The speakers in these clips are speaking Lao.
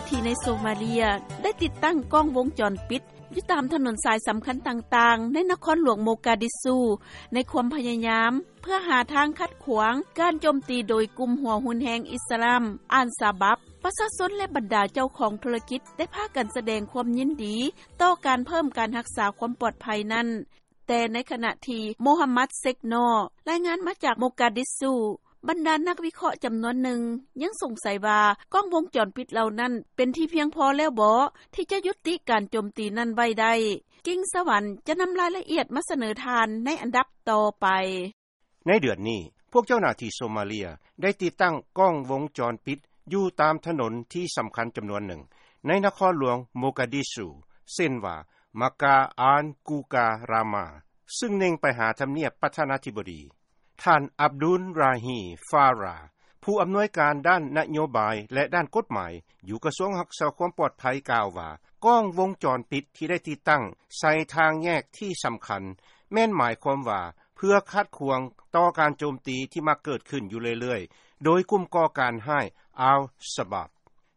ທີ່ໃນໂຊມາເລຍ ໄດ້ຕິດຕັ້ງກ້ອງວົງຈອນປິດ ຢູ່ຕາມຖະໜົນສາຍສຳຄັນຕ່າງໆ ໃນນະຄອນຫຼວງໂມກາດິຊູ ໃນຄວາມພະຍາຍາມ ເພື່ອຫາທາງຂັດຂວາງການໂຈມຕີໂດຍກຸ່ມຫົວຮຸນແຮງອິດສະລາມ ອານຊາບັບ. ປະຊາຊົນ ແລະ ບັນດາເຈົ້າຂອງທຸລະກິດ ໄດ້ພາກັນສະແດງຄວາມຍິນດີ ຕໍ່ການເພີ່ມການຮັກສາຄວາມປອດໄພນັ້ນ. ແຕ່ໃນຂະນະທີ່ ໂມຮັມມັດ ເຊັກນໍ ລາຍງານມາຈາກໂມກາດິຊູ, ບັນດານັກວິເຄາະຈຳນວນໜຶ່ງ ຍັງສົງໄສວ່າ ກ້ອງວົງຈອນປິດເຫຼົ່ານັ້ນ ເປັນທີ່ພຽງພໍແລ້ວບໍ ທີ່ຈະຍຸຕິການໂຈມຕີນັ້ນໄວ້ໄດ້. ກິ່ງສະຫວັນ ຈະນຳລາຍລະອຽດມາສະເໜີທ່ານໃນອັນດັບຕໍ່ໄປ. ໃນເດືອນນີ້, ພວກເຈົ້າໜ້າທີ່ໂຊມາເລຍ ໄດ້ຕິດຕັ້ງກ້ອງວົງຈອນປິດ ຢູ່ຕາມຖະໜົນທີ່ສຳຄັນຈຳນວນໜຶ່ງ ໃນນະຄອນຫຼວງໂມກາດິຊູ ເຊັ່ນວ່າ ມາກາອານກູກາຣາມາ ຊຶ່ງເນັ່ງໄປຫາທຳນຽບປະທານາທິບໍດີ. ທ່ານ ອັບດຸນຣາຮີ ຟາຣາ ຜູ້ອຳນວຍການດ້ານນະໂຍບາຍ ແລະ ດ້ານກົດໝາຍ ຢູ່ກະຊວງຮັກສາຄວາມປອດໄພ ກ່າວວ່າ ກ້ອງວົງຈອນປິດທີ່ໄດ້ຕິດຕັ້ງໃສ່ທາງແຍກທີ່ສຳຄັນ ແມ່ນໝາຍຄວາມວ່າ ເພື່ອຂັດຂວາງຕໍ່ການໂຈມຕີທີ່ມັກເກີດຂຶ້ນຢູ່ເລື້ອຍໆ ໂດຍກຸ່ມກໍ່ການຮ້າຍ ອາລຊະບາບ.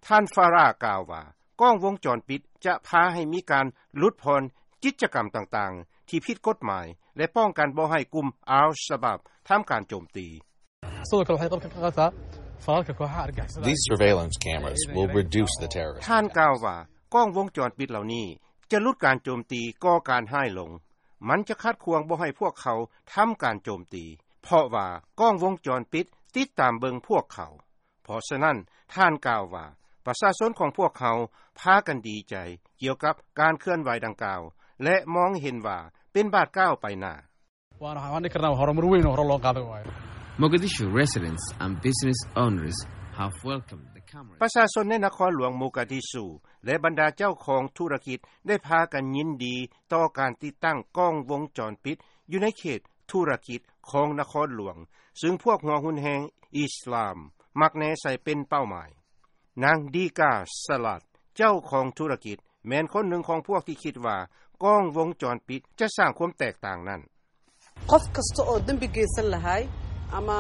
ທ່ານ ຟາຣາ ກ່າວວ່າ ກ້ອງວົງຈອນປິດຈະພາໃຫ້ມີການຫຼຸດຜ່ອນກິດຈະກຳຕ່າງໆ ທີ່ຜິດກົດໝາຍ ແລະ ປ້ອງກັນບໍ່ໃຫ້ກຸ່ມ ອາລຊະບາບ ທຳການໂຈມຕີ. These surveillance cameras will reduce the terrorist. ທ່ານກ່າວວ່າ ກ້ອງວົງຈອນປິດເຫຼົ່ານີ້ ຈະຫຼຸດການໂຈມຕີກໍ່ການຮ້າຍລົງ. ມັນຈະຂັດຂວາງບໍ່ໃຫ້ພວກເຂົາທຳການໂຈມຕີ ເພາະວ່າກ້ອງວົງຈອນປິດຕິດຕາມເບິ່ງພວກເຂົາ. ເພາະສະນັ້ນ, ທ່ານກ່າວວ່າ ປະຊາຊົນຂອງພວກເຮົາພາກັນດີໃຈກ່ຽວກັບການເຄື່ອນໄຫວດັ່ງກ່າວ ແລະ ມອງເຫັນວ່າເປັນບາດກ້າວໄປໜ້າ. Mogadishu residents and business owners have welcomed the camera. ປະຊາຊົນໃນນະຄອນຫຼວງໂມກາດິຊູ ແລະ ບັນດາເຈົ້າຂອງທຸລະກິດ ໄດ້ພາກັນຍິນດີຕໍ່ການຕິດຕັ້ງກ້ອງວົງຈອນປິດ ຢູ່ໃນເຂດທຸລະກິດຂອງນະຄອນຫຼວງ, ຊຶ່ງພວກຫົວຮຸນແຮງອິດສະລາມມັກແນໃສ່ເປັນເປົ້າໝາຍ. ນາງ ດີກາ ສະລັດ ເຈົ້າຂອງທຸລະກິດ ແມ່ນຄົນໜຶ່ງຂອງພວກທີ່ຄິດວ່າ ກ້ອງວົງຈອນປິດຈະສ້າງຄວາມແຕກຕ່າງນັ້ນ. Qof kasta oo danbi geysan lahay ama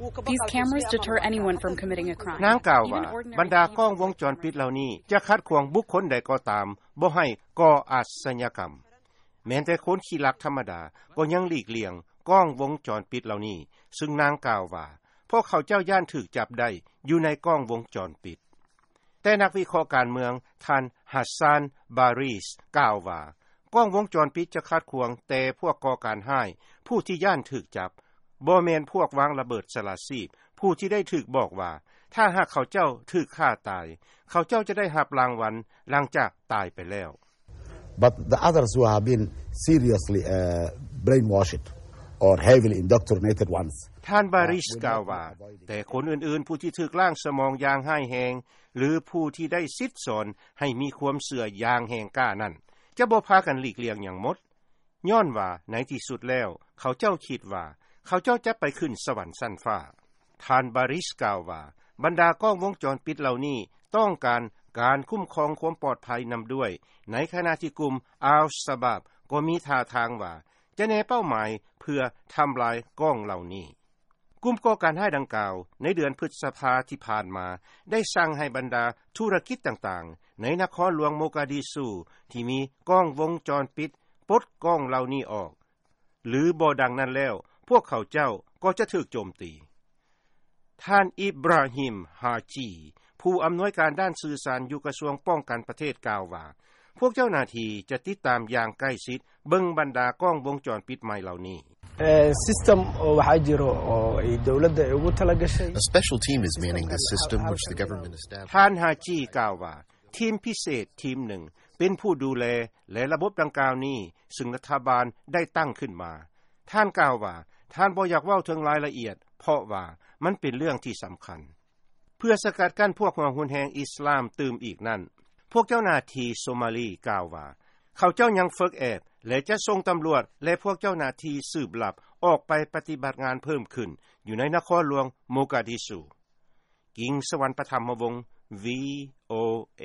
wuu ka baqaa. These cameras deter anyone from committing a crime. ນາງກ່າວວ່າ ບັນດາກ້ອງວົງຈອນປິດເຫຼົ່ານີ້ ຈະຂັດຂວາງບຸກຄົນໃດກໍຕາມ ບໍ່ໃຫ້ກໍ່ອາດຊະຍາກຳ. ແມ່ນແຕ່ຄົນຂີ້ລັກທຳມະດາ ກໍຍັງຫຼີກລ່ຽງກ້ອງວົງຈອນປິດເຫຼົ່ານີ້, ຊຶ່ງນາງກ່າວວ່າ ພວກເຂົາເຈົ້າຢ້ານຖືກຈັບໄດ້ຢູ່ໃນກ້ອງວົງຈອນປິດ. ແຕ່ນັກວິເຄາະການເມືອງ ທ່ານ ຮັດຊານ ບາຣິສ ກ່າວວ່າ ກ້ອງວົງຈອນປິດຈະຂັດຂວາງແຕ່ພວກກໍ່ການຮ້າຍ ຜູ້ທີ່ຢ້ານຖືກຈັບ, ບໍ່ແມ່ນພວກວາງລະເບີດສະຫຼາດຊີບ ຜູ້ທີ່ໄດ້ຖືກບອກວ່າ ຖ້າຫາກເຂົາເຈົ້າຖືກຂ້າຕາຍ, ເຂົາເຈົ້າຈະໄດ້ຮັບລາງວັນຫຼັງຈາກຕາຍໄປແລ້ວ. But the others who have been seriously, uh, brainwashed or heavily indoctrinated ones. ທ່ານ ບາຣິສ ກ່າວວ່າ ແຕ່ຄົນອື່ນໆ ຜູ້ທີ່ຖືກລ້າງສະໝອງຢ່າງຮ້າຍແຮງ ຫຼື ຜູ້ທີ່ໄດ້ສິດສອນໃຫ້ມີຄວາມເຊື່ອຢ່າງແຮງກ້ານັ້ນ ຈະບໍ່ພາກັນຫຼີກລ່ຽງຫຍັງໝົດ, ຍ້ອນວ່າໃນທີ່ສຸດແລ້ວ ເຂົາເຈົ້າຄິດວ່າ ເຂົາເຈົ້າຈະໄປຂຶ້ນສະຫວັນຊັ້ນຟ້າ. ທ່ານ ບາຣິສ ກ່າວວ່າ ບັນດາກ້ອງວົງຈອນປິດເຫຼົ່ານີ້ ຕ້ອງການການຄຸ້ມຄອງຄວາມປອດໄພນຳດ້ວຍ, ໃນຂະນະທີ່ກຸ່ມ ອາລຊະບາບ ກໍມີທ່າທາງວ່າ ຈະແນເປົ້າໝາຍເພື່ອທຳລາຍກ້ອງເຫຼົ່ານີ້. ກຸ່ມກໍ່ການຮ້າຍດັ່ງກ່າວ ໃນເດືອນພຶດສະພາທີ່ຜ່ານມາ ໄດ້ສັ່ງໃຫ້ບັນດາທຸລະກິດຕ່າງໆ ໃນນະຄອນຫຼວງໂມກາດິຊູ ທີ່ມີກ້ອງວົງຈອນປິດ ປົດກ້ອງເຫຼົ່ານີ້ອອກ, ຫຼື ບໍ່ດັ່ງນັ້ນແລ້ວ ພວກເຂົາເຈົ້າກໍຈະຖືກໂຈມຕີ. ທ່ານ ອິບຣາຮິມ ຮາຈີ ຜູ້ອຳນວຍການດ້ານສື່ສານຢູ່ກະຊວງປ້ອງກັນປະເທດ ກ່າວວ່າ ພວກເຈົ້າໜ້າທີ່ຈະຕິດຕາມຢ່າງໃກ້ຊິດ ເບິ່ງບັນດາກ້ອງວົງຈອນປິດໃໝ່ເຫຼົ່ານີ້. Eh, system oo waxaa jiro oo ay dowladda ay ugu talagashay. A special team is manning this system, which the government established. ທ່ານ ຮາຈີ ກ່າວວ່າ ທີມພິເສດທີມໜຶ່ງ ເປັນຜູ້ດູແລ ແລະ ລະບົບດັ່ງກ່າວນີ້ ຊຶ່ງລັດຖະບານໄດ້ຕັ້ງຂຶ້ນມາ. ທ່ານກ່າວວ່າ ທ່ານບໍ່ຢາກເວົ້າເຖິງລາຍລະອຽດ ເພາະວ່າມັນເປັນເລື່ອງທີ່ສຳຄັນ. ເພື່ອສະກັດກັ້ນພວກຫົວຮຸນແຮງອິດສະລາມຕື່ມອີກນັ້ນ, ພວກເຈົ້າໜ້າທີ່ໂຊມາລີກ່າວວ່າ ເຂົາເຈົ້າຍັງຝຶກແອບ ແລະ ຈະສົ່ງຕຳຫຼວດ ແລະ ພວກເຈົ້າໜ້າທີ່ສືບລັບອອກໄປປະຕິບັດງານເພີ່ມຂຶ້ນຢູ່ໃນນະຄອນຫຼວງໂມກາດິຊູ. ກິງສະຫວັນ ປະທຳມະວົງ ວີໂອເອ.